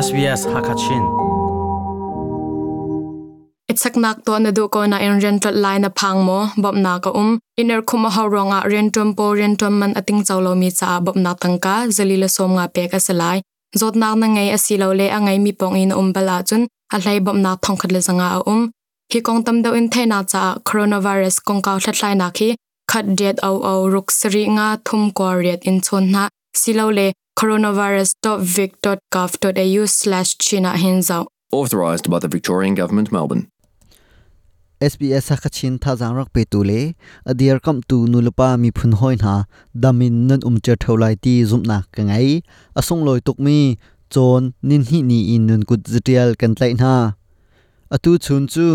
SBS Hakachin. Ichaknak to na du ko na in rian tlolh lai na phang maw? Bawmhnak a um. Iner khum a hau ruangah riantuan pawl riantuan man a tingco lomi caah bawmhnak tangka zali le 50 pek a si lai. Zawtnak na ngei asilole a ngeimi pawng i na um bal ahcun a hlei bawmhnak 1500 a um. Hi kong tam deuh in theihnak caah coronavirus kongkau hlathlainak hi 1 riat 0 0 ruk sarih nga thum kua riat in chawn hna silole coronavirus.vic.gov.au/chin ah hin zoh. Authorised by the Victorian Government, Melbourne. SBS Hakachin thazaang rak petu le a dirkamhtu nulepa miphun hawi hna dam in nan um cio ṭheo lai ti zumhnak ka ngei. A sunglawi tukmi cawn ninhnih ni in nun kut zatial kan tlaih hna. Atu chun cu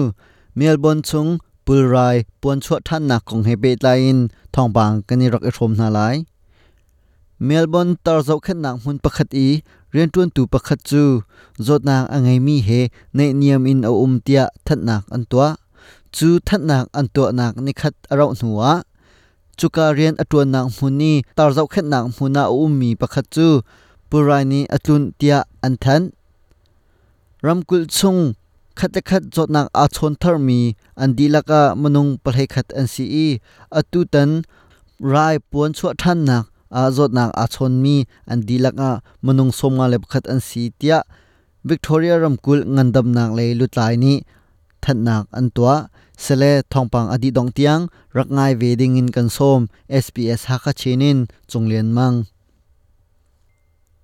Melbourne chung pulrai puanchuah ṭhannak kong he pehtlai in thawngpang kan i rak i hrawm hna lai. Melbourne tar zohkhenhnak hmun pakhat i rianṭuantu pakhat cu zawtnak a ngeimi he naihniam in a um tiah thanhnak an tuah. Cu thanhnak an tuahnak nikhat a rauh hnuah cuka rian a ṭuannak hmun i tar zohkhenhnak hmun ah a ummi pakhat cu pulrai nih a tlunh tiah an thanh. Ramkulh chung khat le khat zawtnak aa chawn tharmi an dihlak ah minung 11 an si i atutan rai puan chuah ṭhannak ah zawtnak aa chawnmi an dihlak ah minung 51 an si tiah Victoria ramkulh ngandamnak lei lutlai nih thanhnak an tuah. Sele thawngpang a dih dongh tiang rak ngai ve ding in kan sawm. SBS Hakha Chin in Cung Lian Mang.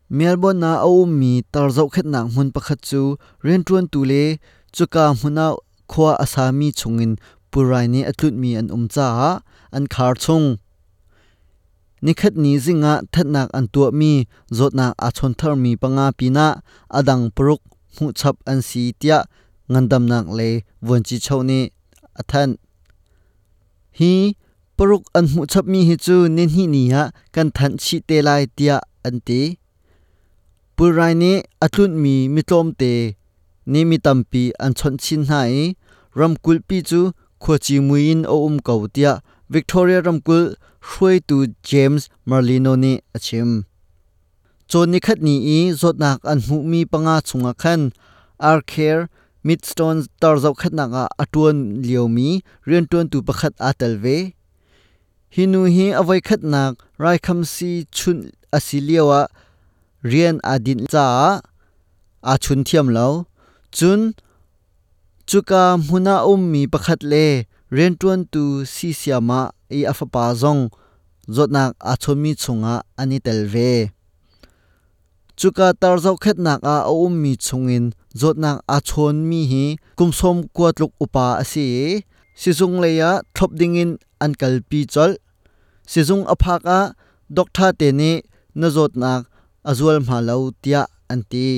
Melbourne ah a ummi tar zohkhenhnak hmun pakhat cu rianṭuantu le cuka hmun ah khua a sami chungin pulrai nih a tlunhmi an um caah an khar chung. Nikhatni zing ah thatnak an tuahmi zawtnak aa chawn tharmi panga pinah a dang paruk hmuhchap an si tiah ngandamnak lei vuanci nih a thanh. Hi paruk an hmuhchapmi hi cu nihnih ni ah kan thanh chih te lai tiah an ti. Pulrai nih a tlunhmi mitlawmte nih mi tampi an chawnh chin hna i ramkulhpi cu khuaci mui in a um ko tiah Victoria ramkulh hruaitu James Merlino nih a chim. Cawn nikhat ni i zawtnak an hmuhmi panga chungah khan Arcare Maidstone tar zohkhenhnak ah a ṭuan liomi rianṭuantu pakhat aa tel ve. Hi nu hi a voikhatnak raikhamsi chunh a si lioah rian aa dinh caah aa chun thiam lo. Cun cuka hmun ah a ummi pakhat le rianṭuantu si siamah i a fapa zong zawtnak aa chawnmi chungah an i tel ve. Cuka tar zohkhenhnak ah a ummi chungin zawtnak aa chawnmi hi kum 90 tluk upa a si i sizung lei ah thlop dingin an kalpi colh. Sizung a phak ah doctor te nih na zawtnak a zual hma lo tiah an ti.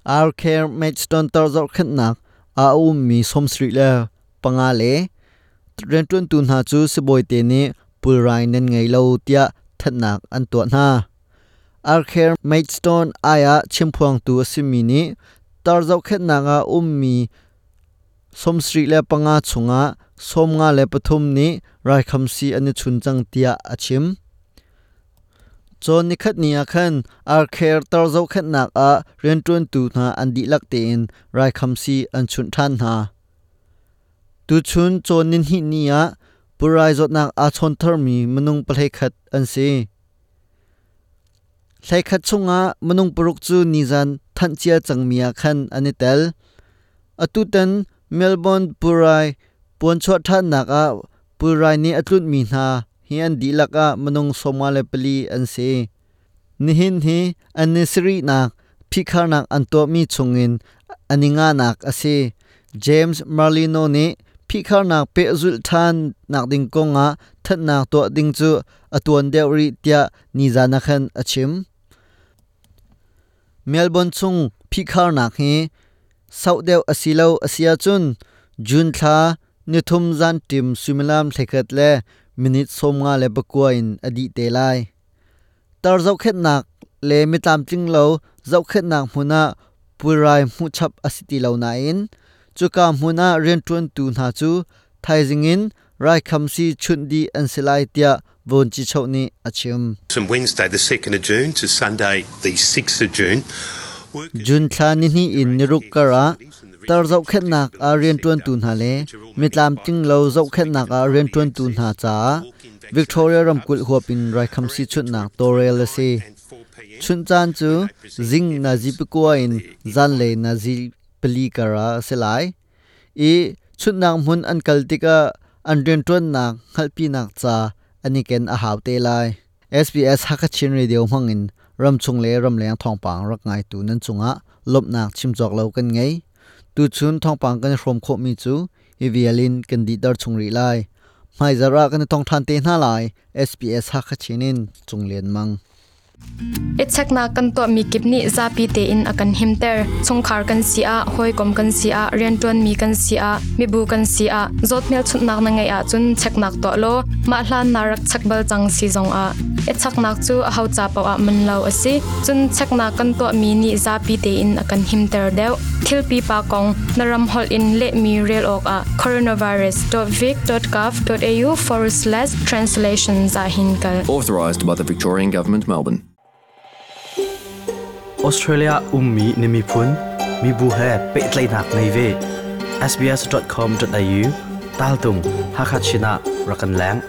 Arcare Maidstone tar zohkhenhnak ah a ummi 75 le rianṭuantu hna cu sibawi te nih pulrai nan ngei lo tiah thanhnak an tuah hna. Arcare Maidstone ai ah chimphuangtu a simi nih tar zohkhenhnak ah ummi 75 chungah 53 nih raikhamsi an i chun cang tiah a chim. Cawn nikhat ni ah khan Arcare tar zohkhenhnak ah rianṭuantu hna an dihlak tein raikhamsi an chunh ṭhan hna. Tuchun cawn nihnih ni ah pulrai zawtnak aa chawn tharmi minung 11 an si. 11 chungah minung paruk cu nizan thanh cia cangmi ah khan an i tel. Atutan Melbourne pulrai puanchuah ṭhannak ah pulrai nih a tlunhmi hna hi an dihlak ah minung 54 an si. Nihin hi an ni sarihnak phihkharnak an tuahmi chungin an i nganak a si. James Merlino nih phihkharnak pehzulh ṭhan nak ding kongah thanhnak tuah ding cu a tuan deuh rih tiah nizan ah khan a chim. Melbourne chung phihkharnak hi sauh deuh a si lo a si ahcun June thla nithum zan ṭim suimilam 11 le minute 59 in a dih te lai. Tar zohkhenhnak le mitlamtling lo zohkhenhnak hmun ah pulrai hmuhchap a si ti lo nain cuka hmun ah rianṭuantu hna cu thaizing in raikhamsi chunh dih an si lai tiah Vuanci nih a chim. From Wednesday the 2nd of June to Sunday the 6th of June, June thla nihnih in niruk kar ah tar zohkhenhnak ah rianṭuantu hna le mitlamtling lo zohkhenhnak ah rianṭuantu hna caah Victoria ramkulh huap in raikhamsi chunhnak tawlrel a si. Chunh caan cu zing nazi pakua in zanlei nazi pali kar ah a si lai i chunhnak hmun an kal tikah an rianṭuannak hngalhpinak ca an i ken a hau te lai. SBS Hakha Chin Radio hmangin ramchung le ramleng thawngpang rak ngaitu nan cungah lawmhnak chim cawk lo kan ngei. Tuchun thawngpang kan i hrawm khawhmi cu hi vial in kan dihter chung rih lai. Hmaizarh ah kan i tong ṭhan te hna lai. SBS Hakha Chin in Cung Lian Mang. I cheknak kan tuahmi kip nih zapi tein a kan himter. Chungkhar kan si ah, hawikom kan si ah, rianṭuanmi kan si ah, mibu kan si ah, zawt hmelchunhnak na ngeih ahcun cheknak tuah law mah hlan naa rak chek bal cang si zongah i cheknak cu aho ca paoh ah man lo a si. Cun cheknak kan tuahmi nih zapi tein a kan himter deuh. Thil pipa kong na ram holh in lehmi rel awkah coronavirus.vic.gov.au forward slash translations ah hin kal. Authorised by the Victorian Government, Melbourne. Australia ummi na miphun, mibu he pehtlaihnak ngei ve. sbs.com.au tal tung Hakha Chin ah rak kan leng.